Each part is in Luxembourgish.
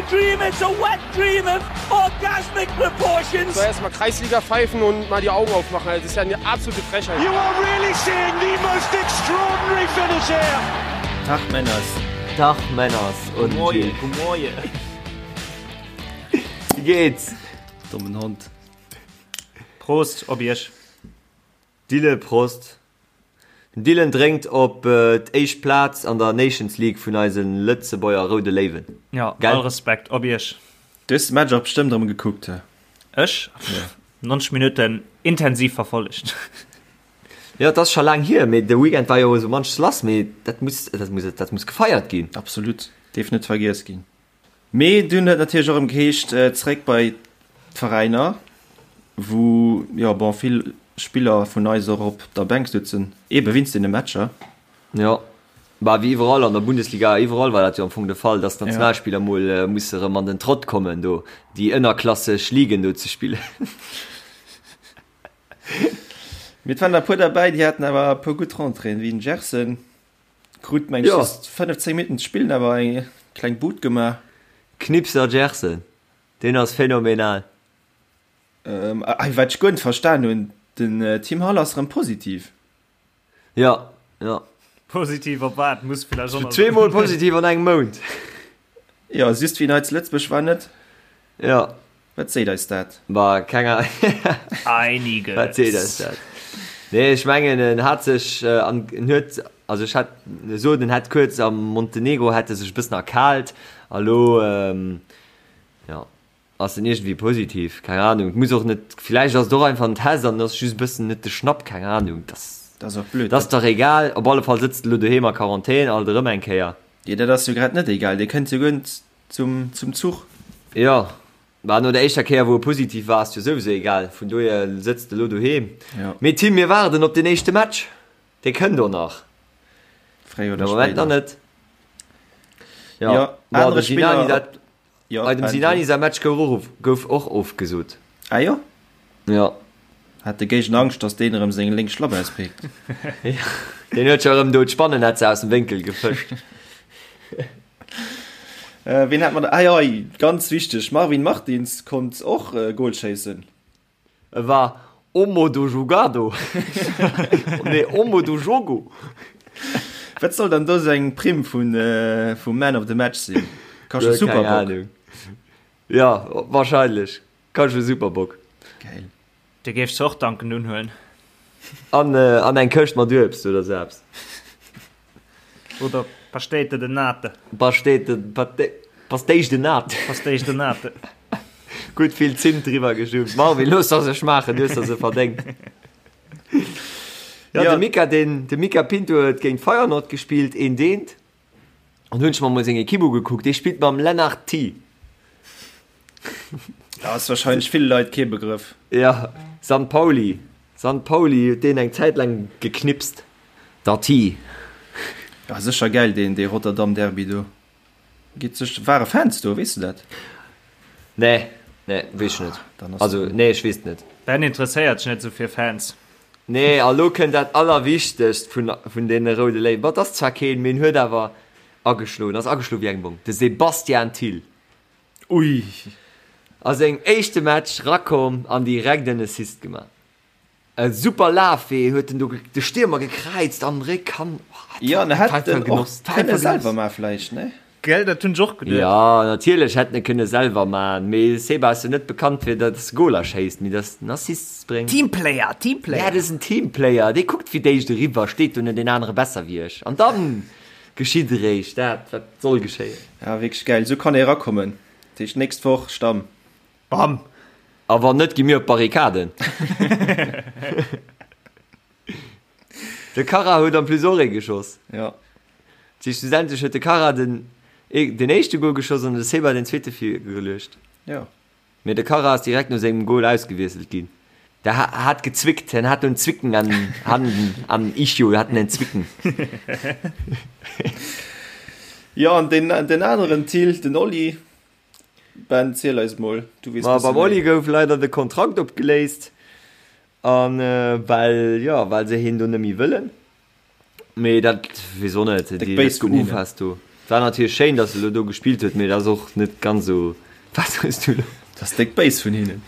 dream, it's a wet dream of orgasmic proportions. So erstmal Kreisliga pfeifen und mal die Augen aufmachen. Also, das ist ja eine absolute Frechheit. You are really seeing the most extraordinary finish here. Tag Männers. Tag Männers und Goeie, goeie. Wie geht's? Dommen Hond. Prost op iech. Dylan, Prost. Den Dylan drénkt op d'éischt Plaz an der Nations League vun eise Lëtzebuerger Roude Léiwen. Jo, Gell? all Respekt op iech. Du hues de Match och bestëmmt erëm gekuckt, he? Ech? 90 Minutten intensiv verfollegt. Jo, et ass scho laang hier, mee de Weekend war jo esou munches lass, mee dat muss, dat muss, dat muss gefeiert ginn. Absolut, dierf net vergiess ginn. Mee dunn huet natierlech och erëm geheescht, zeréck bei d'Veräiner, wou jo bon vill Spiller vun eis och op der Bänk sutzen, eebe wéinst deene Matcher. Jo, bah wéi iwwerall an der Bundesliga, iwwerall war dat jo am Fong de Fall, datt d'Nationalspiller mol musse erëm an den Trott kommen do, déi ënnerklasseg Ligen do ze spillen. Mee et waren der e puer derbäi, déi haten awer e puer gutt Rentréeën, wéi den Gerson. Krut meng Jo. just 15 Minutten ze spillen, awer eng kleng Bud gemaach. Knipser Gerson, deen ass phänomenal. Ähm, ah, wat ech guer net verstan hunn, den äh, Tim Hall ass rëm positiv. Ja, ja. Positiv op wat? Muss vielleicht och nach Zweemol positiv an engem Mount. Ja, just wéi en hei zu Lëtzebuerg war net. Ja. Wat seet eis dat? Bah, keng Ahnung. Einiges. Wat seet eis dat? Nee, ech mengen en hat sech an en huet, also ech hat sot en hätt kuerz am Montenegro hätt e sech e bëssen erkaalt a lo jo ass en iergendwéi positiv, keng Ahnung. Et muss och net, villäicht ass et och einfach en Test an ass just e bëssen net de Schnapp, keng Ahnung. Dat Dat ass och blöd. ass dach egal, op alle Fall sëtzt e lo doheem a Quarantän, alt erëm eng Kéier. Jo, dat ass jo grad net egal, dee kënnt jo guer net zum, zum Zuch. Jo, bah no der éischter Kéier wou e positiv war ass jo souwisou egal, vun dohier sëtzt e lo doheem. Jo. Mee Tim, mir waarden op den éischte Match, dee kënnt och nach. Fréier oder De Moment nach spéider. net. Jo, Jo, bon, anere de Sinani, Spiller dat, Jo, bei dem Ben, Sinani säi Match gouf och of, gouf och ofgesot. Ah jo? Jo. Hat de Géigner Angscht, datt deen erëm seng lénk Schlapp auspéckt? Deen huet scho erëm do d'Spannennetzer aus dem Wénkel gefëscht. Ween hat mer da? Ah jo, ganz wichteg, Marvin Martins konnt och e Gol schéissen. E war Homo do jogado, nee Homo do jogo. Wat soll dann do seng Primm vun vum Man of the Match sinn? Kascht e Keng Superbock? Ahnung. Ja, wahrscheinlech. Kascht e Superbock. Geil. Dir géift se och dankend unhuelen. An, an eng Këscht mat Uebst oder sou eppes. Oder Pastéite de Nate. Pastéite, Pastéis de Nate. Pastéis de Nate. Gutt vill Zimt driwwer geschummt. Marvin, looss der se schmaachen, du hues der se verdéngt. Ja, de Mika, den, de Mika Pinto huet géint Feyenoord gespillt, een Deent. An hunn ech mer mol seng Equipe ugekuckt, dee spillt mam Lennart Thy. Ja, ass wahrscheinlech ville Leit kee Begrëff. Ja, San Pauli. San Pauli huet deen eng Zäit laang geknipst. Der Thy. Ja, sécher gäil deen, dee Rotterdam Derby do. Geet sech, ware Fans do, weess de dat? Nee, nee, weess ech net. Dann ass Also, nee, ech weess et net. Ben interesséiert sech net esou fir Fans. Nee, a lo kënnt dat Allerwichtegst vun, vun deene Roude Léiwen. Bon, et ass zwar keen, mee en huet awer ageschloen, ass ageschloen wéi eng Bom, de Sebastian Thill. Ui! A sengem éischte Match rakomm an direkt en Assist gemaach. E super Lafwee huet en do de Stiermer gekräizt an Réck han. Jo, en hätt en och kënne selwer man vläicht, ne? Gell, dat hunn ech och geduet. Jo, natierlech hätt en e kënne selwer man, mee Seba ass jo net bekannt fir datt e Goler schéisst, mee datt en Assists bréngt. Teamplayer, Teamplayer! Ja, dat ass en Teamplayer, dee kuckt fir d'éischt eriwwer, steet do net een anere besser wéi ech, an dann geschitt eréischt dat, wat soll geschéien. Ja, wierklech gäil, esou kann ee erakommen. Dat heescht nächst Woch Stamm. Bam! A wann net, gi mir op d'Barrikaden. De Kara huet en plus och ee geschoss. Ja. Dat heescht, schlussendlech huet de Kara den, den éischte Gol geschoss an de Seba den zweete virgeluecht. Ja. Mee de Kara ass direkt no sengem Gol ausgewiesselt ginn. Der hat gezwickt, en hat en Zwicken an an an Ischio hat en Zwicken. Jo, an den, den aneren Thill, den Oli, Ben, ziel eis mol, du weess Ma bësse beim Oli méi. gouf leider de Kontrakt opgeléist an well jo well se hien do net méi wëllen. Mee dat weess och net, Déck déi béis dat vun hinnen. geufast do. Et war natierlech schéin, datt e lo do gespillt huet, mee et ass och net ganz esou. Wat hues du lo? Dat ass déck béis vun hinnen.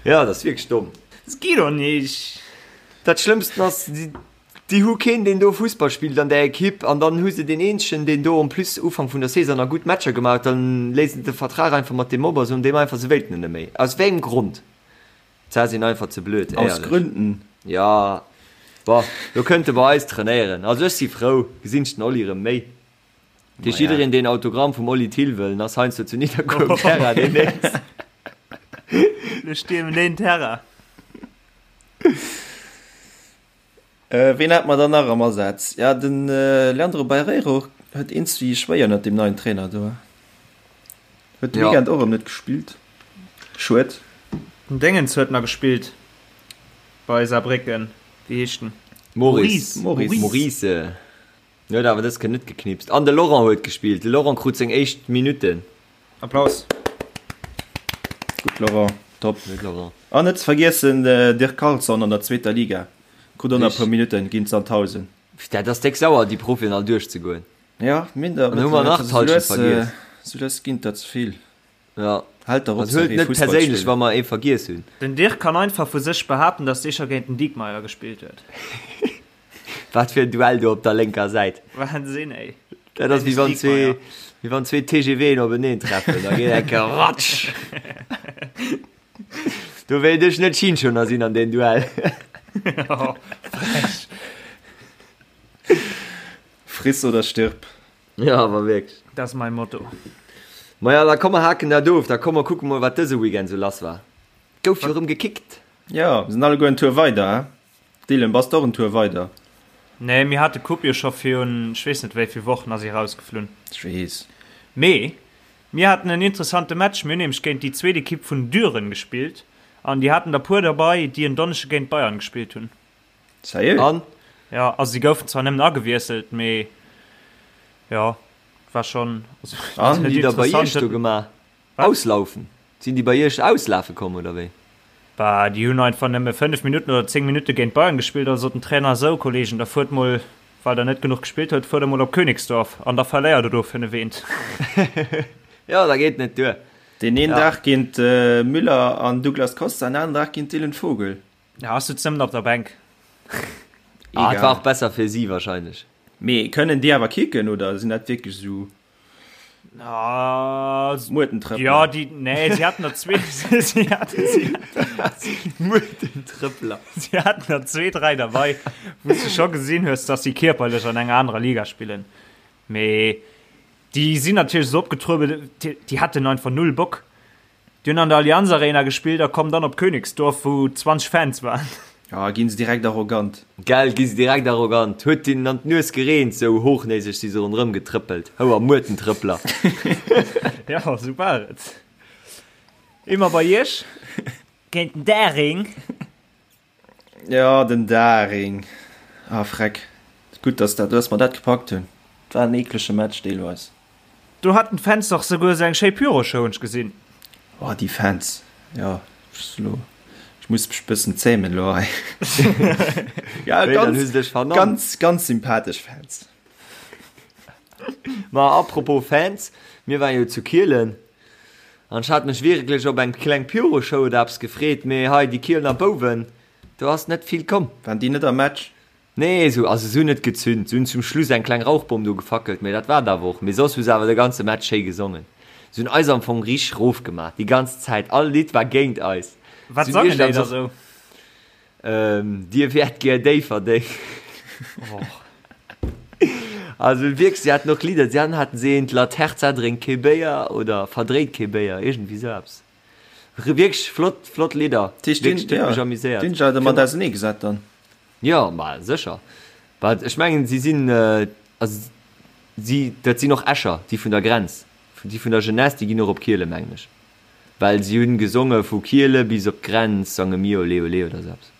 Jo, dat ass wierklech domm. Dat geet och nicht. Dat Schlëmmsten ass, déi hu keen, deen do Fussball spillt an där Ekipp an dann hu se deen eenzegen, deen do en plus Ufank vun der Saison nach gutt Matcher gemaach huet, dann léisen se de Vertrag einfach mat deem op a soen deem einfach, se wéilten en net méi. Aus wéi engem Grond? D'Sa sinn einfach ze blöd, Aus éierlech. Gründen. Jo, bon, lo kënnt e bei eis trainéieren. Also ech si frou, gesinn ech den Oli erëm méi. Dat heescht, jiddereen, deen Autogramm vum Oli Thill wëll, en ass heiansdo zu Nidderkuer um Terrain deemnächst. Lo stiermen deen Terrain. Ween hat mer dann nach am Asaz? Ja, de Leandro Barreiro huet eenz wéi schwéier ënnert deem neien Trainer do. Huet de Weekend och erëm net gespillt. Schued. Den Déngens huet nach gespillt bei Saarbrécken. Wéi heescht en? Maurice. Maurice. Maurice. Huet awer dës Kéier net geknipst. An de Laurent huet gespillt. De Laurent krut seng éischt Minutten. Applaus. Gutt Laurent, top. Gutt Laurent. An net ze vergiessen Dirk Carlson an der zweeter Liga. Krut och nach e puer Minutten géint Sandhausen. Dat ass déck sauer déi Profien all duerchzegoen. Ja, minder An hu mer nach d'Halschent vergiess. Sou lues ginn et der ze vill. Ja. Haalt der op Also huelt net perséinlech wa mer ee vergiess hunn. Den Dirk kann einfach vu sech behaapten, dass dee scho géint den Diekmeyer gespillt huet. Wat fir en Duell do op der lénker Säit. Wahnsinn ey. Dat ass wéi wann zwee, wéi wann zwee TGVen openeen treffen, da geet eng Kéier ratsch. Do wéilt ech net Schinschoner sinn an deem Duell. Frech. Friss oder stirb. Ja, awer wierklech. Dat ass mäi Motto. Maja, da komm mer haken dat of. Da komm mer kucke mol, wat dëse Weekend sou lass war. Gouf jo rëm gekickt. Jo, mir sinn alleguer en Tour weider, he? Dylan, bass de och en Tour weider? Nee, mir hate Coupe jo scho virun ech weess net wéi vill Wochen ass si rausgeflunn. Ech weess. Mee mir haten en interessante Match. Mir hunn nämlech géint déi zweet Ekipp vun Düren gespillt an déi haten der puer derbei, déi en Donneschde géint Bayern gespillt hunn. Sérieux? An? Jo, also si goufen zwar nëmmen agewiesselt, mee jo, war schonn, also An? Hunn déi da bei iech do gemaach? Auslaufen? Sinn déi bei iech auslafe komm oder wéi? Bah, déi hunn einfach nëmme 5 Minutten oder 10 Minutte géint Bayern gespillt, also sot den Trainer, Sou Kollegen, da fuert mol, well der net genuch gespillt huet, fuert der mol op Königsdorf an da verléiert der do 5 eent. Jo, da geet net duer. Deen een Dag géint Müller an Douglas Costa, en aneren Dag géint Dylan Vogel. Ja, ass sutz nëmmen op der Bänk. Ah, et war och besser fir si wahrscheinlech. Mee kënnen déi awer kicken oder sinn dat wierklech esou Muertentrëppler? Ja, déi, nee, si haten der zwee, si haten, si, Muertentrëppler. Si haten der zwee, dräi derbei, wou s de scho gesinn hues, dass si kierperlech an enger anerer Liga spillen. Mee déi sinn natierlech esou opgetruebelt, déi, déi haten einfach null Bock. Déi hunn an der Allianz Arena gespillt a kommen dann op Königsdorf, wou 20 Fans waren. Ja, ginn se direkt arrogant. Gell, gi se direkt arrogant. Huet hinnen an d'Nues gereent, sou hochnäseg si se ronderëm getrëppelt. Houer Muertentrëppler. Ja, sou war et. Immer bei iech géint den Daring. Ja, den Daring. Ah, freck. Gutt, dass dat, dass mer dat gepackt hunn. Et war en eeklege Match deelweis. Do haten d'Fans dach souguer esou eng schéi Pyroshow, hunn ech gesinn. Oh, déi Fans. Jo, ech lo, ech muss mech bëssen zämen lo hei. Ja, Wéi, dann ganz, hu se dech vernannt. ganz, ganz sympathesch Fans. Ma apropos Fans, mir waren jo zu Kielen An ech hat mech wierklech op eng kleng Pyroshow oder eppes gefreet, mee hei déi Kielener Bouwen, do ass net vill komm. Waren déi net am Match? Nee, esou, also se hunn net gezünt, se hunn zum Schluss eng kleng Rauchbomm do gefackelt, mee dat war et awer och. Mee soss hu se awer de ganze Match schéi gesongen. Se hunn eis am Fong richteg rofgemaach, déi ganz Zäit, all Lidd war géint eis. Wat Se hunn sangen déi iergendwann da och. sou? Dir wäert gär Déifferdeng. Also wierklech, si haten och Lidder, si haten haten se eent La Terza drénkt kee Béier oder verdréit kee Béier, iergendwéi sou eppes. Wierklech flott, flott Lidder. Dat heescht, Wierklech, déi huet mech ja, amuséiert. déi hunn sech awer mat ausenee gesat dann? Jo, ma sécher. Wat ech mengen, si sinn, also si, dat sinn och Escher, déi vun der Grenz, déi vun der Jeunesse, déi ginn och op Kiele mengen ech. Well si hunn gesonge vu Kiele bis op d'Grenz sange mir olé olé oder sou eppes.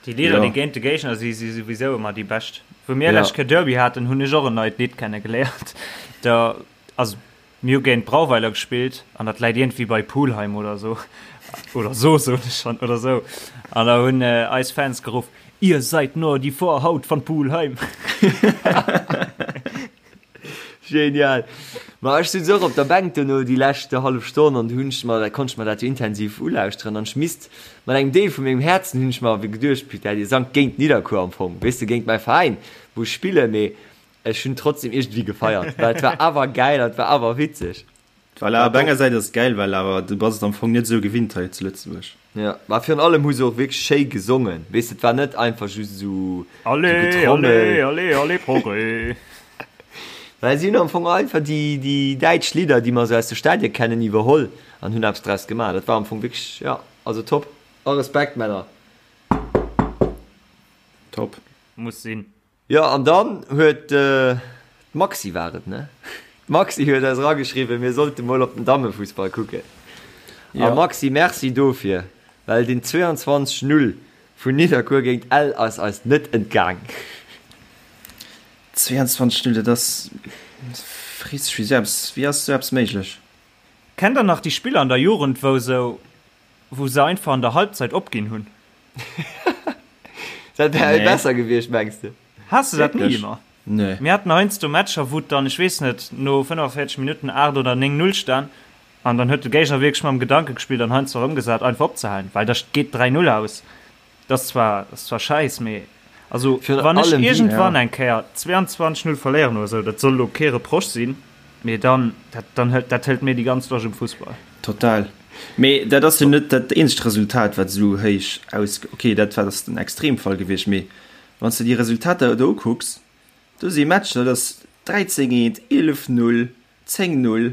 Déi Lidder, Jo. déi géint de Géigner si, si souwisou ëmmer déi bescht. Wou mir Ja. lescht Kéier Derby haten, hunn ech och en neit Lidd kenne geléiert. Da, also mir hu géint Brauweiler gespillt an dat läit iergendwéi bei Pulheim oder sou, oder sou soen ech schonn, oder sou. An da hunn eis Fans geruff, Ihr seid nur die Vorhaut von Pulheim. Genial. Ma ech sutz och op der Bänk duerno déi lescht hallef Stonn an du hunn ech mer, konnt ech mer dat jo intensiv ulauschteren an ech misst mat engem Deel vu mengem Häerzen hunn ech mer awer geduecht, putain, dir sangt géint Nidderkuer am Fong, weess de, géint mäi Veräin, wou ech spillen, mee ech hunn trotzdem iergendwéi gefeiert, well et war awer gäil an et war awer witzeg. Voilà, op enger Säit ass et gäil, well awer du bass et am Fong net esou gewinnt hei zu Lëtzebuerg. Jo, ma virun allem hu se och wierklech schéi gesongen, weess de, et war net einfach just esou Allez, Getrommel. allez, allez, allez, Progrès! Well si hunn am Fong einfach déi, déi däitsch Lidder, déi mer esou aus de Stadie kennen, iwwerholl an hunn eppes draus gemaach. Dat war am Fong wierklech, jo, also top. A Respekt, Männer! Top. Muss sinn. Jo, an dann huet d'Maxi, war et, ne? D'Maxi huet eis erageschriwwen, mir sollte mol op den Dammefussball kucken. A Maxi, Merci dofir, well den 22, 0 vun Nidderkuer géint Ell ass eis net entgaang. 22, 0, dat ass, frees dech, wéi esou eppes, wéi ass esou eppes méiglech? Kennt der nach déi Spiller an der Jugend, wou sou, wou se einfach an der Halbzeit opginn hunn? Dat wär nee. besser gewiescht, mengs de? Has de dat ni ëmmer? Nee. Mir haten heiansdo Matcher, wou et dann, ech weess net, no 45 Minutten 8 oder 9, 0 stan an dann huet de Géigner wierklech mam Gedanke gespillt an heiansdo erëmgesat, einfach opzehalen, well da geet 3, 0 aus. Dat ass zwar, ass zwar schäiss, mee also Virun wann ech allem déi, iergendwann ja. eng Kéier 22, 0 verléieren oder esou, dat soll elo kee Reproche sinn, mee dann, dat, dann hëlt, dat hëlt mir déi ganz Loscht um Fussball. Total. Mee dat ass jo net dat eenzegt Resultat, wat esou héich aus. Ok, dat war ass den Extremfall gewiescht, mee wann s de déi Resultater do ukucks, do si Matcher, dat ass 13 eent, 11 0, 10 0,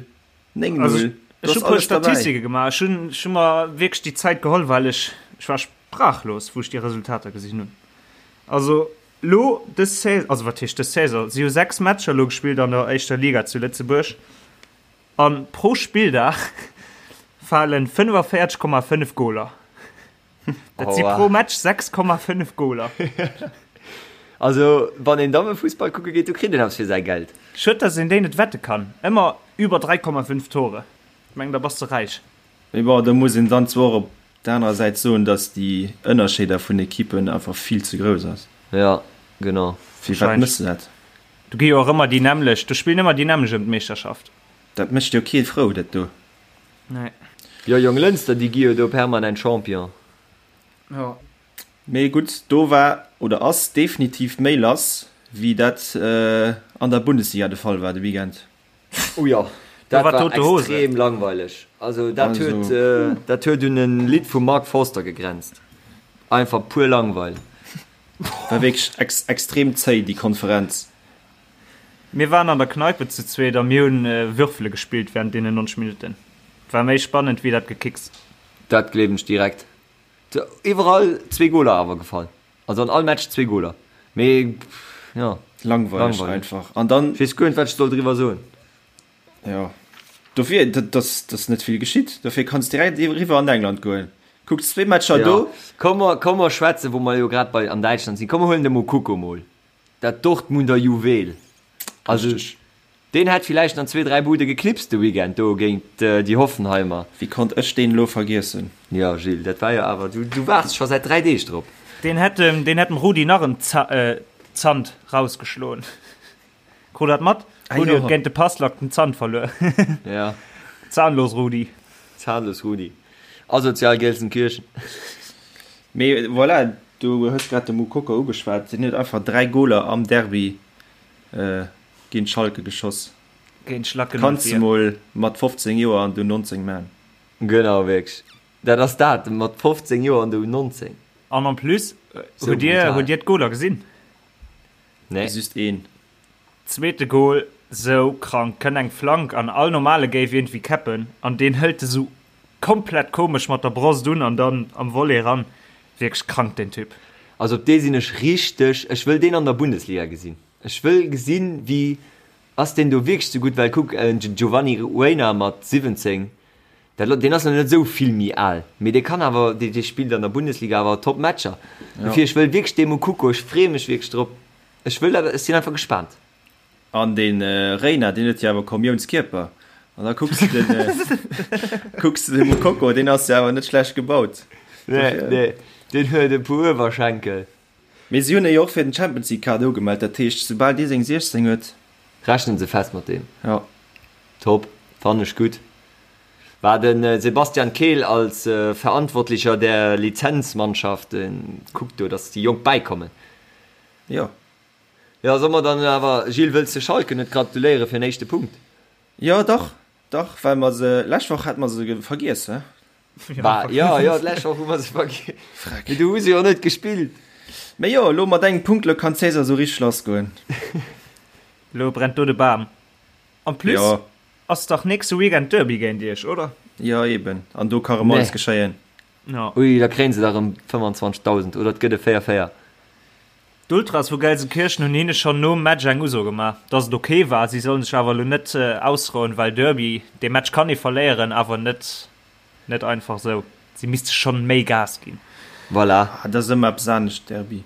9 0, Also ech, do ech hu ass puer alles derbäi. Statistike gemaach. Ech hunn, ech hu mer wierklech déi Zäit geholl, well ech, ech war sprachlos, wou ech déi Resultater gesinn hunn. Also lo dës Saison, also wat heescht dës Saison, si hu 6 Matcher lo gespillt an der éischter Liga zu Lëtzebuerg. An pro Spilldag falen 45,5 Goler. Dat si pro Match 6,5 Goler. Also wann een Dammefussball kucke geet, do kritt een eppes fir säi Geld. Schued dass een déi net wette kann. Ëmmer über 3,5 Tore. Ech mengen da bass de räich. Mee bon, do muss een dann zwar och op der anerer Säit soen, dass déi Ënnerscheeder vun Ekippen einfach vill ze grouss ass. Ja, genau. Firwat mëss de dat? Do gi jo och ëmmer déi nämmlecht, do spillen ëmmer déi nämmlecht ëm d'Meeschterschaft. Dat mécht jo kee frou, dat do. Nee. Jo, Jonglënster, déi gi jo do permanent Champion. Jo. Mee gutt, do war oder ass definitiv méi lass, wéi dat an der Bundesliga de Fall war de Weekend. Oh jo, Do dat war war tote Hose. extrem langweileg. Also dat Also. huet, dat huet un en Lidd vum Mark Forster gegrenzt. Einfach pur Langweil. War wierklech ex extrem zéi, déi Konferenz. Mir waren an der Kneipe zu zweet a mir hunn Würfele gespillt während deenen 90 Minutten. War méi spannend wéi dat Gekicks. Dat gleewen ech direkt. Iwwerall zwee Goler awer gefall. Also an all Match zwee Goler. Mee jo, Langweileg langweileg. einfach. An dann. Ech weess guer net wat ech soll driwwer soen. Jo, dofir, dat ass net vill geschitt. Dofir kanns direkt eriwwer an England goen. Kucks zwee Matcher Jo, do. komm mer, komm mer schwätzen, wou mer jo grad bei an Däitschland sinn, komm mer huelen de Moukoko mol, dat Dortmunder Juwel. Also Richteg. deen hätt villäicht an zwee, dräi Bude geknipst de Weekend do géint déi Hoffenheimer. Wéi konnt ech deen elo vergiessen? Jo, Gilles, dat war jo awer, du, du waarts scho säit dräi Deeg drop. Deen hätt dem, deen hätt dem Rudi nach en Zant rausgeschloen. Krut dat mat? Ah, Rudi jo. huet géint de Passlack den Zant verluer. Ja. Zahnlos Rudi. Zahnlos Rudi. Asozial Gelsenkirchen. Mee voilà, du hues grad de Moukoko ugeschwat, deen huet einfach 3 Goler am Derby géint Schalke geschoss. Géint Schlacken Kanns de mol mat 15 Joer an du 19 man. Genau, wierklech. Dat ass dat, mat 15 Joer an der U19. An en plus, Sou hutt dir, brutal. hutt dir d'Goler gesinn? Nee. Just een. Zweete Goal, sou krank, kënnt eng Flank an all normale géif iergendwéi käppen an deen hëlt e sou komplett komesch mat der Brosst un an dann am Volley ran. Wierklech krank deen Typ. Also op dee sinn ech richteg, ech wëll deen an der Bundesliga gesinn. Ech wëll gesinn wéi ass deen do wierklech sou gutt, well kuck en Giovanni Reyna mat 17, dat deen ass nach net esou vill méi al, mee dee kann awer, dee dee spillt an der Bundesliga awer top Matcher. Dofir ech wëll wierklech dee Moukoko, ech freeë mech wierklech drop. Ech wëll dat, ech sinn einfach gespaant. An de Reyna, deen huet jo awer Kommiounskierper. An da kucks de den, kucks de de Moukoko, deen ass jo awer net schlecht gebaut. Nee, nee, deen huet e puer Uewerschenkel. Mee si hunn e jo och fir den Champions League Kader ugemellt, dat heescht, soubal dee seng 16 huet. Rechnen se fest mat deem. Jo. Top, fannen ech gutt. War den Sebastian Kehl als Verantwortlicher der Lizenzmannschaft kuckt do, dass déi Jonk bäikommen. Jo. Jo, soll mer dann awer, Gilles, wëlls de Schalke net gratuléiere fir den éischte Punkt? Jo, dach, dach, well mer se, lescht Woch hate mer se vergiess, he? Bah, jo, jo, d'lescht Woch hu mer se vergiess. Freck. Mee du hu se jo net gespillt. Mee jo, elo mat engem Punkt, elo kann d'Saison esou richteg lassgoen. Elo brennt do de Bam. En plus Jo. ass dach nächste Weekend Derby géint iech, oder? Jo, eben. An do ka rëm alles Nee. geschéien. Jo. Ui, da kréien se der erëm 25.000, oder et gëtt e 4, 4. D'Ultras vu Gelsenkirchen hunn hinne schonn nom Match eng Uso gemaach, dass et ok war. Si sollen sech awer elo net ausrouen, well Derby, dee Match kann ee verléieren, awer net net einfach esou. Si misste schonn méi Gas ginn. Voilà. Ah, dat ass ëmmer eppes anescht, Derby.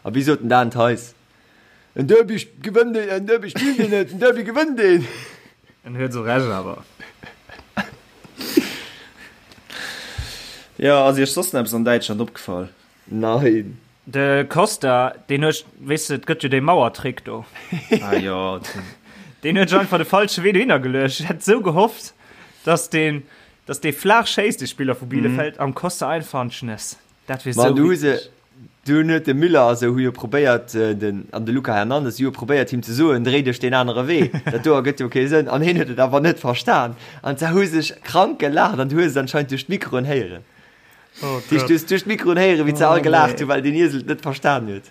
A wéi sot den Dan Theis? En Derby gewënnt een, en Derby spillt een net, en Derby gewënnt een! En huet esou Recht awer. Jo, ass iech soss nach eppes an Däitschland opgefall? Nein. De Costa, deen huet, weess de, et gëtt jo dee Mauertrick do. Ah jo. Deen huet sech einfach de falsche Wee dohinner geluecht. Ech hätt esou gehofft, dass deen, dass dee flaach schéisst, de Spiller vu Bielefeld, am Costa einfach an d'Schnëss. Dat wier Ma esou du hu se, witzeg. dunn huet de Müller a sou hu jo probéiert, den, an de Luca Hernandez hu jo probéiert him ze soen, dréi dech deen anere Wee, dat do ergëtt jo kee Sënn. An hien huet et awer net verstan. An se hu sech krank gelaacht an du hues et anscheinend duerch d'Mikroen héieren. Oh Dich, du hues duerch d'Mikroen héieren, wéi se all Oh, gelaacht nee. hu, well den Iesel et net verstan huet.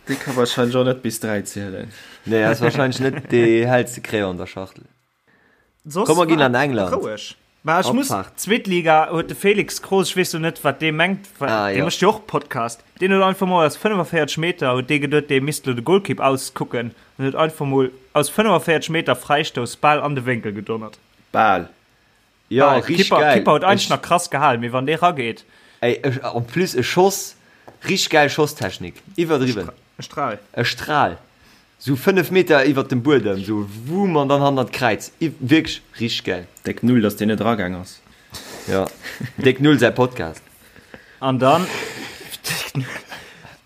Dee ka wahrscheinlech och net bis 3 zielen. Nee, ass wahrscheinlech net dee hellste Crayon an der Schachtel. Soss Komm, mer ginn war an England. Roueg. Mä ech muss, Opfahrt. zweet Liga huet de Felix Kroos, ech weess lo net, wat dee mengt, well Ah, dee jo. mécht jo och Podcast, deen huet einfach mol aus 45 Meter, huet dee geduet, dee misst lo de Golkipp auskucken, an huet einfach mol aus 45 Meter Fräistouss bal an de Wénkel gedonnert. Bal. Jo, Bal. richteg Kipper, geil. Kipper huet eigentlech Ech, nach krass gehalen, mee wann dee rageet. ey, ech, en plus e Schoss, richteg geil Schosstechnik, iwwerdriwwen. E Stral. E Stral, sou 5 Meter iwwert dem Buedem, sou wumm an dann hannert d'Kräiz. Wierklech richteg geil. Déck Null, dass deen net eragaang ass. Jo, Déck Null säi Podcast. An dann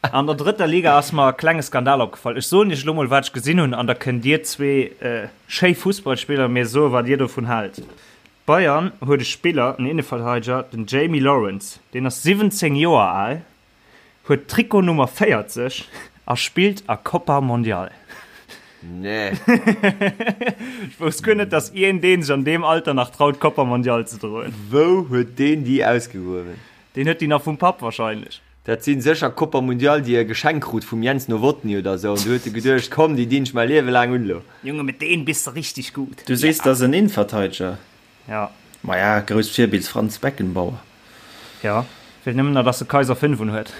an der drëtter Liga ass mer e klenge Skandal opgefall. Ech soen iech elo mol, wat ech gesinn hunn, an da kënnt dir zwee schéi Fussballspiller mir soen, wat dir dovun haalt. Bayern huet e Spiller, en Inneverteideger, den Jamie Lawrence, deen ass 17 Joer al, huet Trikot Nummer 40 a spillt a Copa Mondial. Nee. Ech wousst guer net, dass iergendeen deen sech an deem Alter nach traut Copa Mondial ze droen. Wou huet deen déi ausgegruewen? Deen huet déi nach vum Papp wahrscheinlech. Dat sinn sécher Copa Mundial déi e geschenkt krut vum Jens Nowotny oder sou an du huet e geduecht, komm déi dinn ech mäi Liewe laang un lo. Junge mit deen biss de richteg gut. Du sees, dat ass en Innenverteideger. Ja. Maja, grousst Virbild Franz Beckenbauer. Ja, feelt nëmmen nach, dass de Kaiser 5 un huet.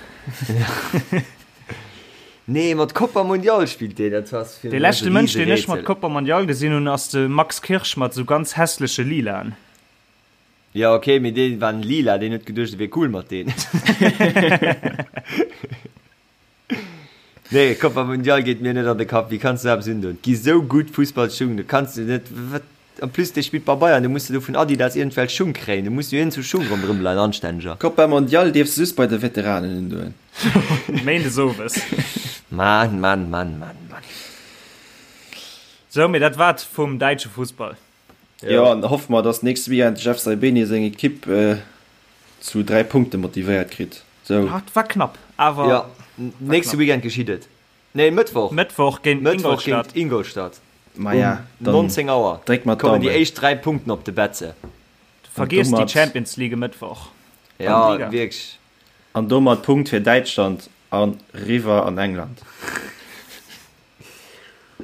Nee, mat Copa Mundial spillt deen, dat ass fir Dee mech leschte e Mënsch, deen ech mat Riserätsel. Copa Mondial gesinn hunn, ass de Max Kirsch mat sou ganz hässleche Lilaen. Ja ok, mee dee war lila, deen huet geduecht e wier cool mat deen. Nee, Copa Mundial geet mir net an de Kapp, wéi kanns du eppes undoen? Et gi sou gutt Fussballschung, do kanns du net, wat, en plus dee spillt bei Bayern, do muss de do vun Adidas iergendwelch Schung kréien, do muss jo iergendwou Schung ronderëm leien, anstänneger. Copa Mondial dierfs de just bei de Veteranen undoen. Méindes owes. Mann, Mann, Mann, Mann, Mann. Sou, mee dat war et vum däitsche Fussball. Jo, an hoffe mer, dass nächste Weekend de Jeff Saibene seng Ekipp zu 3 Punkte motivéiert kritt. Sou. Ah, et war knapp, awer. Jo, nächste Weekend geschitt et. Nee, Mëttwoch. Mëttwoch géint Mëttwoch Ingolstadt. géint Ingolstadt. Maja, Um dann 19 Auer dréck mer kommen déi d'Daumen. éischt 3 Punkten op de Betze. Vergiess déi domat- Champions League e Mëttwoch. Ja, Liga. wierklech. An domat Punkt fir Däitschland an riwwer an England.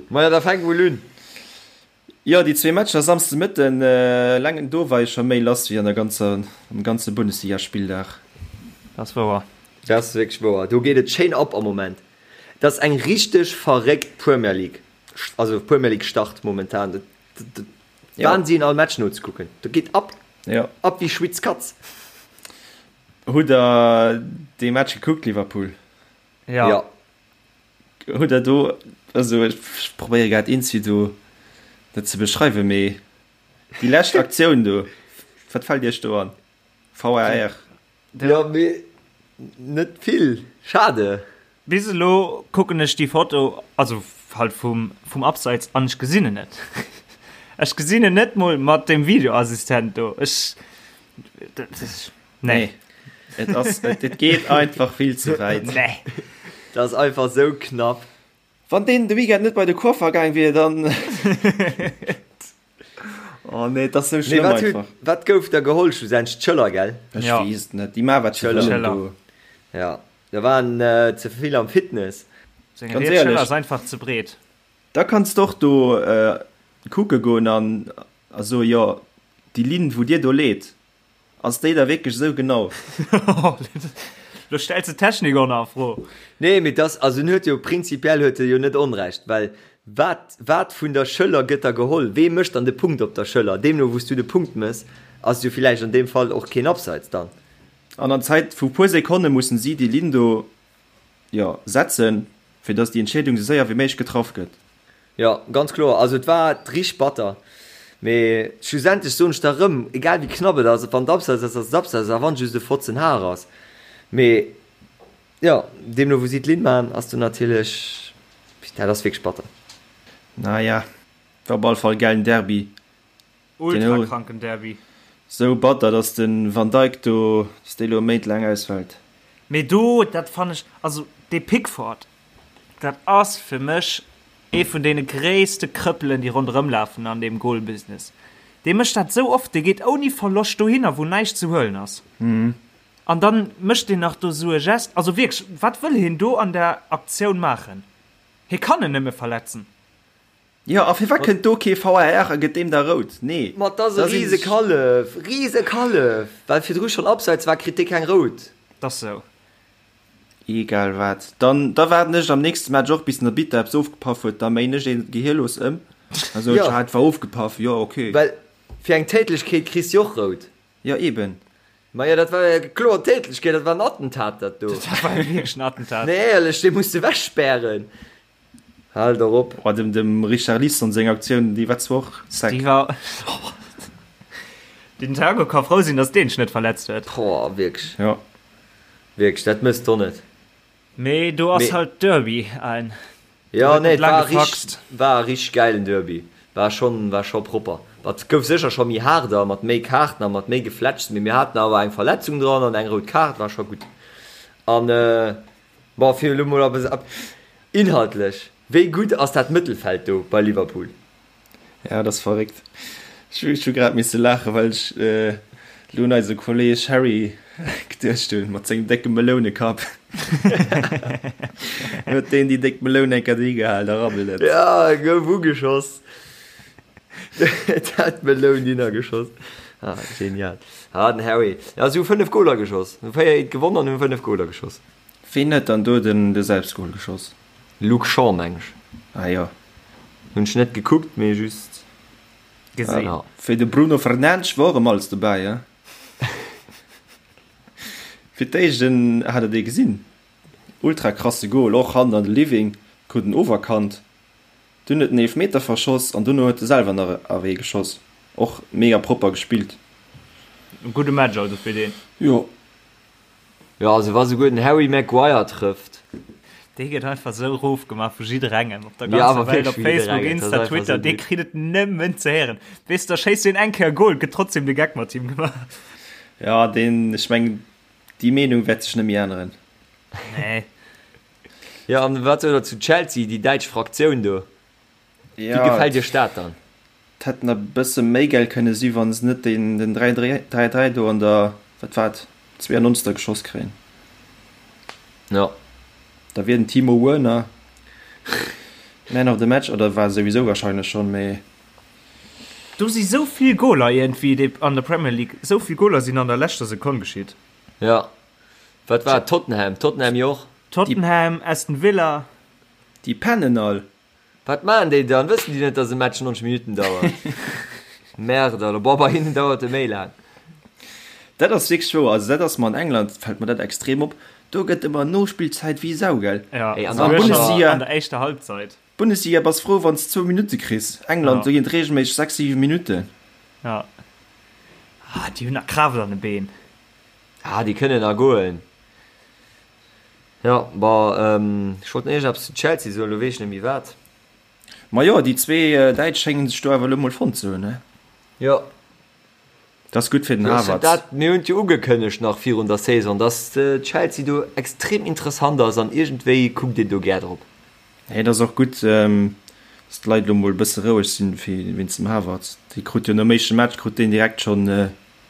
Maja, da fänk mol un. Jo, déi zwee Matcher Samsde Mëtten, eleng do war jo scho méi lass wéi an der ganzer, am ganze Bundesligaspilldag. Dat ass wouer. Dat ass wierklech wouer. Do geet et schéin ab am Moment. Et ass eng richteg verréckt Premier League, also Premier League Start momentan. Dat Wahnsinn all Match nozekucken. Dat geet ab, ab wéi Schwitz Katz. Hutt der dee Match gekuckt, Liverpool? Jo. Hutt der do, also ech probéiere grad eenzi do dat ze beschreiwen, mee déi lescht Aktioun do, wat fält iech do an? VAR. Jo, mee net vill. Schade. Bis elo kucken ech déi Foto, also. Halt vum, vum Abseits an ech gesinn en net. Ech gesinn en net mol mat dem Videoassistent do. Ech, nee. Nee. Et ass, et, et geet einfach vill ze wäit. Nee. Dat ass einfach sou knapp. Wann deen de Weekend net bei de Coiffer gaang wier, dann. Oh nee, et ass sou Nee, schlëmm wat huet, einfach. wat gouf da geholl schlussendlech? D'Schëller, gell? Ech Ja. weess et net. Déi maache wat se D'Schëller. wëllen Schëller. do. Ja, da waren äh, ze vill am Fitness. Seng Ganz riets Schëller éierlech. ass einfach ze breet. Da kanns de och do äh, kucke goen an a soe jo, déi Linn wou dir do leet, Ass déi da wierklech esou genau? Lo stells de d'Technik och nach a Fro. Nee, mee dass, also en huet jo prinzipiell huet e jo net Onrecht, well wat, wat vun der Schëller gëtt da geholl? Wee mécht dann de Punkt op der Schëller? Deemno wou s du de Punkt mëss, ass et jo villäicht an deem Fall och keen Abseits dann. An an Zäit vu puer Sekonne mussen si déi Linn do, jo, setzen, fir dass déi Entscheedung esou séier wéi méiglech getraff gëtt. Jo, ganz kloer. Also et war richteg batter. Mee schlussendlech soen ech der erëm, egal wéi knapp et ass, wann et Abseits ass, ass et Abseits, a wann et just e Fotzen Har ass. Mee jo, deemno wou si d'Linn maachen, ass do natierlech, dat ass wierklech batter. Naja, war op alle Fall e gäilen Derby. Ultra kranken Derby. Sou batter, dass de Van Dijk do, dass dee lo Méint laang ausfält. Mee do, dat fannen ech, also dee Pickford, dat ass fir mech ee vun deene gréisste Krëppelen, déi ronderëm lafen an deem Goalbusiness. Dee mécht dat sou oft, dee geet ouni Verloscht dohinner, wou näischt ze huelen ass. An dann mécht deen nach do sou e Gest. Also wierklech, wat wëll hien do an der Aktioun maachen? Hie kann en nëmme verletzen. Jo, a firwat kënnt do kee VAR a gëtt deem da rout? Nee. Ma 't ass e rise Kallef, rise Kallef! Well virdru schonn Abseits war, kritt dee keng rout. 't ass sou. Egal wat. Dann da waarden ech am nächste Match och bis den Arbitter eppes ofgepaff huet, da méin ech ee gehierlos ëm a soen, Jo. ah, et war ofgepaff, jo ok. Well fir eng Tätlechkeet kriss de och rout. Jo eben. Majo, dat war jo kloer Tätlechkeet, dat war en Attentat dat do. Dat war wierklech en Attentat. Nee, éierlech, dee muss de ewechspären. Haal der op. Oh, dem, dem Richarlison seng Aktioun, déi war zwar och sec. Déi war. Den Thiago ka frou sinn, datt deen sech net verletzt huet. Boah, wierklech. Ja. Wierklech, dat mëss d'o net. Mee do ass Mee. halt Derby ein. Ja, gëtt nee, net et laang war richteg, gefaxt. war e richteg gäilen Derby. War schonn, war scho propper. Et gouf sécher scho méi haarder, mat méi Kaarten a mat méi Geflätschs, mee mir haten awer eng Verletzung dran an eng rout Kaart, war scho gutt. An, Bon, fir elo mol op inhaltlech, wéi gutt ass dat Mëttelfeld do bei Liverpool? Ja, dat ass verréckt. Ech hu grad misse laachen, well ech elo un eise Kolleeg Harry geduecht hunn, mat sengem décke Melounekapp. Huet deen déi déck Meloun eng Kéier dohi gehal, da rabbelt et. Ja, e gouf ugeschoss. Et hat d'Meloun hinner geschoss. Ah, genial. Ah, den Harry. Ja, si hu 5 Goler geschoss. Hu 4 eent gewonnen an hu 5 Goler geschoss. Ween huet dann do den de Selbstgol geschoss? Luke Shaw meng ech. Ah jo. Hunn ech net gekuckt, mee just Gesinn. Ja. Fir de Bruno Fernandes wor erëm alles dobäi, he? Fir d'éischt en hat der dee gesinn? Ultra krasse Gol, och hannen an de Living, krut en oferkannt, dunn huet en Eelfmeter verschoss an dono huet e selwer nach awee geschoss. Och mega propper gespillt. E gudde Match also fir deen. Jo. Jo, also wa souguer den Harry Maguire trëfft. Dee gëtt einfach sou rof gemaach vu jidderengem op der Ja, ganzer awer Welt, op wierklech vu Facebook, jidderengem, dat ass Insta, einfach Twitter, sou dee gutt. kritt et nëmmen ze héieren. Weess, da schéisst deen eng Kéier e Goal, gëtt trotzdem de Geck mat him gemaach. Ja, deen, ech mengen, déi Meenung wäert sech net méi änneren. Nee. Jo, an wat sot der zu Chelsea, déi däitsch Fraktioun do? Wéi Ja, gefält iech dat dann? Et hätt nach e bësse méi gäil kënne si wann se net den den 3 3 3 do an der, wat war et, 92. geschoss kréien. Jo. Da wier den Timo Werner Man of the Match, oder war souwisou wahrscheinlech schonn, mee. Do si sou vill Goler iergendwéi déi an der Premier League, sou vill Goler sinn an der leschter Sekonn geschitt. Jo. Wat war et? Tottenham? Tottenham jo och. Tottenham, Aston Villa. Déi pennen all. Wat maachen déi dann? Wëssen déi net, dass e Match 90 Minutten dauert? Merde alors, boah, bei hinnen dauert e méi laang. Dat ass wierklech wouer. Also dat ass mer an England, fält mer dat extrem op. Do gëtt ëmmer Nospillzäit wéi Sau, gell? Ja, Ey, an souguer der scho Bundesliga- an der éischter Halbzeit. Bundesliga bass frou wann s zwou Minutte kriss. England, Ja. do ginn et reegelméisseg 6, 7 Minutten. Ja. Ah, déi hunn nach Kraaft an de Been. Ah, déi kënnen nach goen. Jo, bon, ech wollt nach iergendeppes zu Chelsea soen, elo weess ech net méi wat. Ma jo, déi zwee Däitsch schéngen sech do awer elo mol fonnt ze hunn, ne? Jo. Dat ass gutt fir den Havertz. Dat, mir hunn et jo ugekënnegt nach virun der Saison, dass Chelsea do extrem interessant ass an iergendwéi kuckt een do gär drop. Nee, et ass och gutt, dass d'Leit elo mol e bësse roueg sinn wéinst dem Havertz. Dee krut jo nom éischte Match krut deen direkt schonn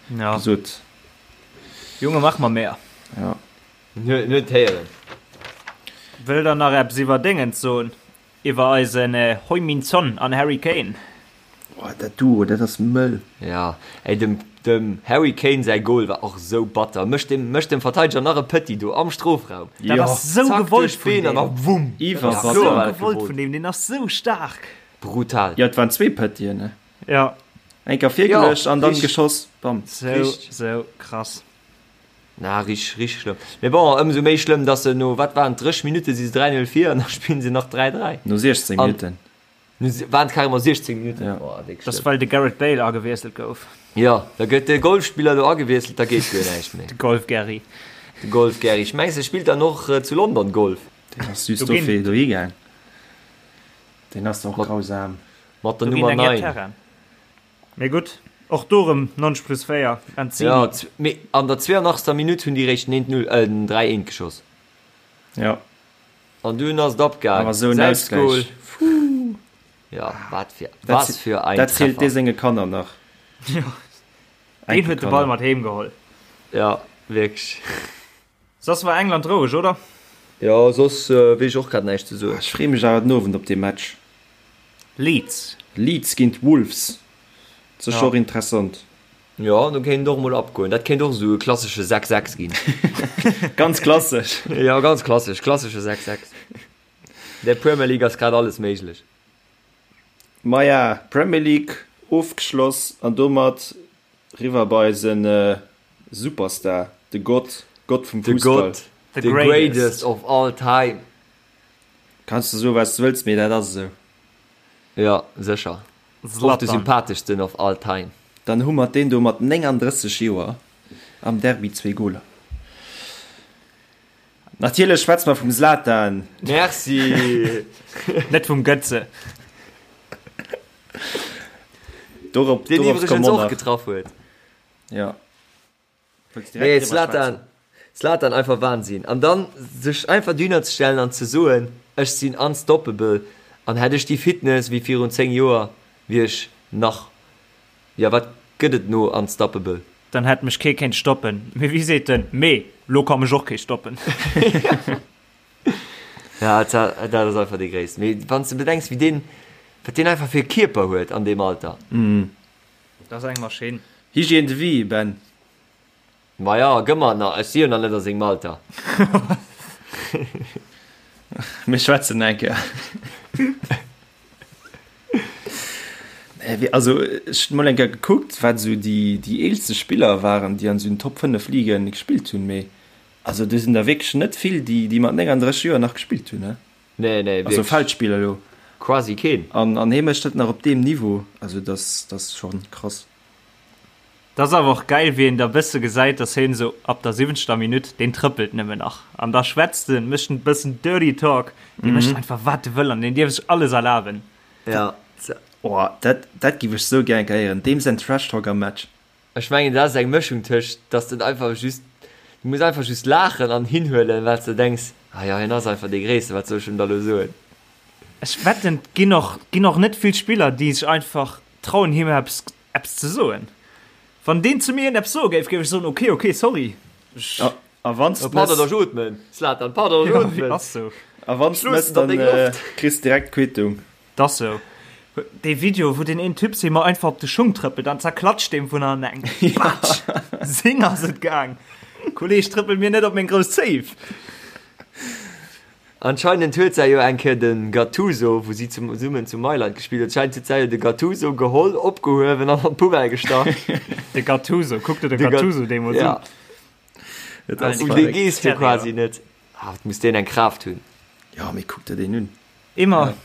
gesot. Junge, mach mer mehr. Ja. En huet héieren. Wëllt der nach eppes iwwer Déngens soen? Iwwer eisen Heung-Min Son an Harry Kane? Oh, dat Duo, dat ass mëll. Ja, ey, dem, dem Harry Kane säi Goal war och sou batter. Mécht dem, mécht dem Verteideger nach e Petit do am Strofraum. Dat ass sou Zack, gewollt duerch vun d'Been an deem. da wumm. Dat ass sou gewollt vun deem, deen ass sou staark. Brutal. Jo, et waren zwee Petiten, ne? Ja. Eng Kéier virgeluecht an dann geschoss, bam. Sou, sou krass. Na, richteg, richteg schlëmm. Mee bon, ëmsou méi schlëmm, dass se no, wat waren et, 30 Minutte si se 3-0 vir an da spillen se nach 3-3. No 16 Minutten. No, waren et carrément 16 Minutten? Ja. Oh, déck Das schlëmm. well de Gareth Bale agewiesselt gouf. Jo, da gëtt de Golfspiller do agewiesselt, da geet guer näischt méi. De Golf-Gerry. De Golf-Gerry. Ech mengs, e spillt dann och zu London Golf. Deen ass just Do ginn. dofir dohi gaang. Deen ass och grausam. Mat der Do ginn Nummer eng Är 9. Terrain. Mee gutt, och do rëm 90 plus 4, Lanzini. Ja, mee an der 82. Minutt hunn déi réischt den 1-0, äh, den 3-1 geschoss. Ja. An dunn ass et abgaang. Awer esou en Selbstgol. Ausgleich. Puh. Ja, wat fir, was für ein Dat zielt dee Treffer. senge Kanner nach. Jo, deen huet de Ball mat heem geholl. Ja, wierklech. Soss war England roueg, oder? Jo, soss weess ech och grad näischt ze soen. Ech free mech awer den Owend op dee Match. Leeds. Leeds géint Wolves, sécher och interessant. Jo, do kéint et och mol abgoen. Dat kéint och esou e klassesche 6, 6 ginn. Ganz klassesch. Jo, ganz klassesch, klassesche 6, 6. Der Premier League ass grad alles méiglech. Maja, Premier League ofgeschloss an domat Riwwer bei eisen Superstar, de Gott, Gott vum De Fussball. Gott, the greatest of all time. Kanns de soen wat s de wëlls, mee dat ass esou. Jo, sécher. Och de Zlatan. sympatheschsten of all time. Dann hu mer deen do mat 39 Joer am Derby zwee Goler. Natierlech schwätze mer vum Zlatan. Merci! Net vum Götze. Dorop, Deen dorop iwwregens komme mer och nach. getraff huet. Ja. Wëlls direkt Nee, driwwer Zlatan, schwätzen? Zlatan einfach Wahnsinn. An dann sech einfach dohinner ze stellen an ze soen, ech sinn unstoppable an hätt ech déi Fitness wéi virun 10 Joer, wier ech nach, jo wat gëtt et no unstoppable? Dann hätt mech kee kéint stoppen. Mee wéi seet en, Mee lo ka mech och kee stoppen. Ja, dat ass einfach dee Gréissten. Mee wann s de bedenks, wéi deen, wat deen einfach fir e Kierper huet an deem Alter. Dat ass eng Maschinn. Hygiène de vie, Ben. Maja, gëmm mer nach, ech si jo nach net a sengem Alter. Mir schwätzen eng Kéier. Nee, wéi, also ech hunn mol eng Kéier gekuckt, wat esou déi, déi eelste Spiller waren, déi an esou den Top 5 Ligen gespillt hunn, mee also do sinn der wierklech net vill, déi, déi mat 39 Joer nach gespillt hunn, ne? Nee, nee, Also wierklech. Feldspiller elo. Quasi keen. An, an hee mécht dat nach op deem Niveau, also dat, dat ass schonn krass. Dat ass awer och geil wéi een da bësse gesäit dass heen esou ab der siwwenzter Minutt, deen trëppelt nëmmen nach an da schwätzt en, mécht en bëssen dirty talk, dee mécht einfach wat e wëll an deen dierf sech alles erlaben. Ja. Oh, dat, dat giff ech sou gär eng Kéier héieren, deem säin Trash Talk am Match. Ech mengen dat ass eng Mëschung tëscht dass den einfach just, du muss einfach just laachen an hinhuelen wat s de denks, ah jo hien ass einfach dee Gréissten, wat soll ech em da lo soen. Ech wetten et ginn och, ginn och net vill Spiller déi sech einfach trauen him eppes Eppes ze soen. Wann deen zu mir eppes soe géif, géif ech soen, ok, ok, sorry. Ech. A wann s de Pardon, mëss. ech ootmen, Zlatan, pardon, ech ootmen. Ass sou. A wann s de mëss, dann kriss de direkt d'Quittung. 't ass sou. Dee Video, wou deen een Typ him einfach op de Schung trëppelt an zerklatscht deem vun hannen eng. Patsch! Sing ass et gaang. Kolleg, trëppel mir net op meng grouss Zéif. Anscheinend huet säi jo eng Kéier de Gattuso, wou si zesummen zu Mailand gespillt huet, anscheinend huet säi jo de Gattuso geholl, opgehuewen an an d'Poubelle gestach. De Gattuso, kuck der de Gattuso deemools un. Et ass Um dee verréckt. gees du quasi net. Ah, wat muss deen eng Kraaft hunn. Jo, mee kuck der deen un. Immer,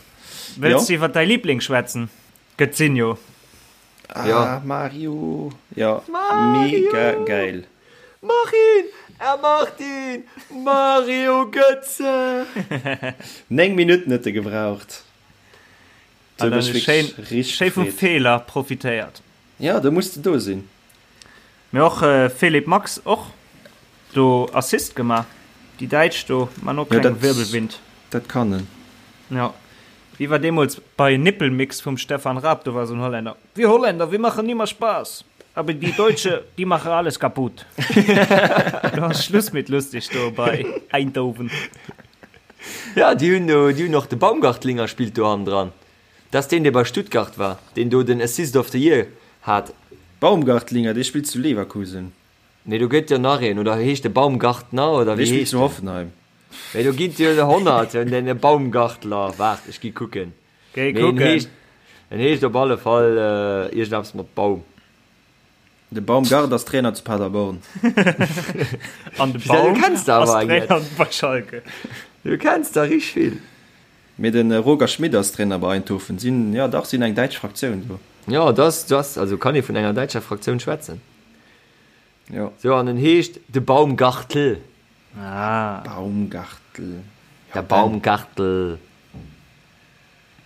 wëlls Jo. du iwwer däi Liebling schwätzen? Götzinho. Ah, Ja. Mario. Ja, Mario! mega geil. Mach ihn! Er macht ihn! Mario Götze! 9 Minutten huet e gebraucht. An dann schéin, schéi vum Feeler profitéiert. Ja, do muss de do sinn. Mee och Philipp Max och do Assist gemaach. Déi Däitsch do man och keng Wirbelwind. Dat kann en. Jo. Wéi war deemools bei Nippelmix vum Stefan Raab, do war esou en Holländer, Wir Holländer, wir machen immer Spaß, aber die Deutsche, die machen alles kaputt. Do ass Schluss mit lustig do bei Eindhoven. Ja, déi hunn do, déi hunn och de Baumgartlinger spillt do hannendran. Dat ass deen, dee bei Stuttgart war, deen do den Assist of the Year hat. Baumgartlinger, dee spillt zu Leverkusen. Nee, do gëtt jo nach een, oder heescht de Baumgartner, oder wéi heescht deen? Dee spillt zu Hoffenheim. Mee do ginn et jo 100, den Baumgartler. Waart, ech gi kucken. Géi kucken. Mee en heescht, en heescht op alle Fall iergendeppes mat Baum. De Baumgart ass Trainer zu Paderborn. An de Baum ass Trainer bei Schalke. Du kenns der richteg vill. Mee de Roger Schmit ass Trainer bei Eindhoven. Sinn, jo dach, sinn eng däitsch Fraktioun do. Jo, dat ass, also kann ee vun enger däitscher Fraktioun schwätzen. Jo. Sou, an en heescht de Baumgartl. Ah. Baumgartl. Der Baumgartl.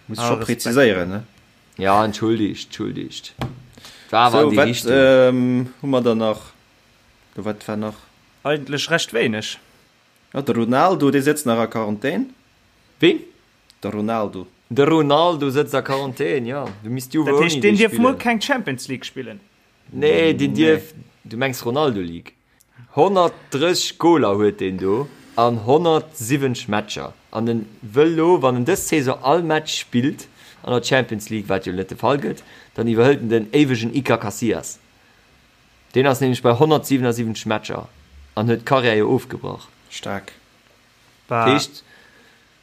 Muss scho präziséieren, ne? Ja, entschuldigt, entschuldigt. War awer an déi Richtung. Sou, wat hu mer dann nach? Do, wat war nach? Eigentlech recht wéineg. Jo, de Ronaldo, dee sëtzt nach a Quarantän. Ween? De Ronaldo. De Ronaldo sëtzt a Quarantän, jo. Du misst Juve Dat ouni heescht, deen dee dierf muer spillen. keng Champions League spillen? Nee, deen dierf, du mengs Ronaldo League. 130 Goler huet deen do an 170 Matcher an en wëll lo, wann en dës Saison all Match spillt an der Champions League, wat jo net de Fall gëtt, dann iwwerhëlt en den éiwegen Iker Casillas. Deen ass nämlech bei 177 Matcher an huet d'Karriär jo ofgebrach. Staark. Dat heescht,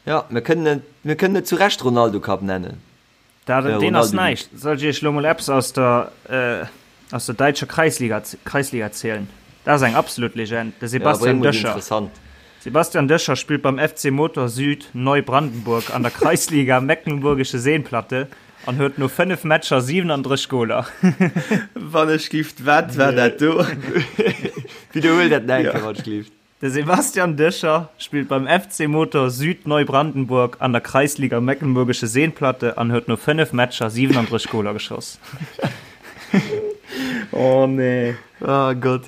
jo, mir kënnen et, mir kënnen et zu Recht Ronaldo Cup nennen. Dat, deen ass näischt. Soll ech iech lo mol eppes aus der, aus der däitscher Kreisliga, Kreisliga zielen? Dat ass eng absolut Legend, de Sebastian Döscher. Sebastian Döscher spillt beim FC Motor Süd Neubrandenburg an der Kreisliga Mecklenburgische Seenplatte an huet no 5 Matcher 37 Goler. Wann ech gift, wat war dat do? Widderhuel dat nach eng Kéier, wann ech gift. De Sebastian Döscher spillt beim FC Motor Süd Neubrandenburg an der Kreisliga Mecklenburgische Seenplatte an huet no 5 Matcher 37 Goler geschoss. Oh nee. Oh Gott.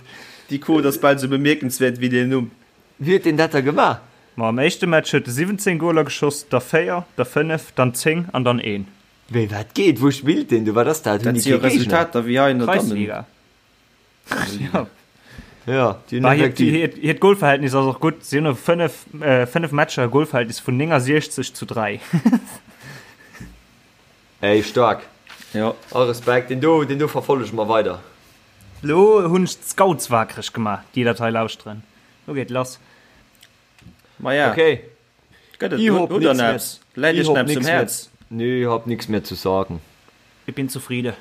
Déi Quote ass bal sou bemierkenswäert wéi deen Numm. Wéi huet deen dat da gemaach? Ma am éischte Match huet e 17 Goler geschoss, da 4, da 5, dann 10 an dann een. Wéi, wat geet? Wou spillt deen do? Wat ass dat? Hunn Dat déi si jo kee Géigner? Resultater wéi hei an der Dammen. Kreisliga. Ja. Ja, déi hunn Bah, hiert, effektiv. hiert, hiert Golverhältnis ass och gutt. Si hunn no 5, äh, 5 Matcher e Golverhältnis vun 69 zu 3. Ey, staark. Ja. All Respekt. Deen do, deen do verfollege mer weider. Lo hunn ech d'Scouts wakereg gemaach, déi dat hei lauschteren. Lo geet lass. Maja. Okay. Gëtt et Ich hab hutt der nix mehr, eppes? Läit ich iech hab eppes um nix mehr, Häerz? nee, ich hab nix mehr zu sagen. Ich bin zufriede.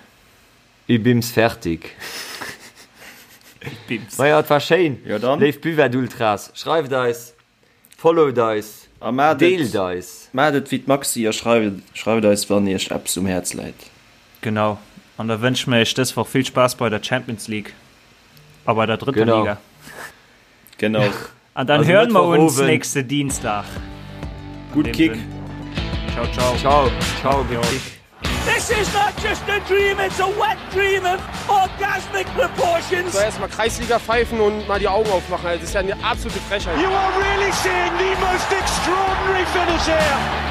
Ich bims fertig. Ich bims. Maja, et war schéin. Jo dann. Léif Buvette-Ultras, schreift eis, followt eis, A maacht et, deelt eis. maacht et wéi d'Maxi a schreift, schreift eis wann iech eppes um Häerz läit. Genau. An da wënsche mir iech dës Woch vill Spaass bei der Champions League a bei der drëtter Genau. Liga. Genau. An dann Also hören wir uns Mëttwochabend. nächste Dienstag. Gutt Kick. Ciao, ciao. Ciao, ciao, gutt Kick. This is not just a dream, it's a wet dream of orgasmic proportions. So erstmal Kreisliga pfeifen und mal die Augen aufmachen. Das ist ja eine absolute Frechheit. You are really seeing the most extraordinary finish here.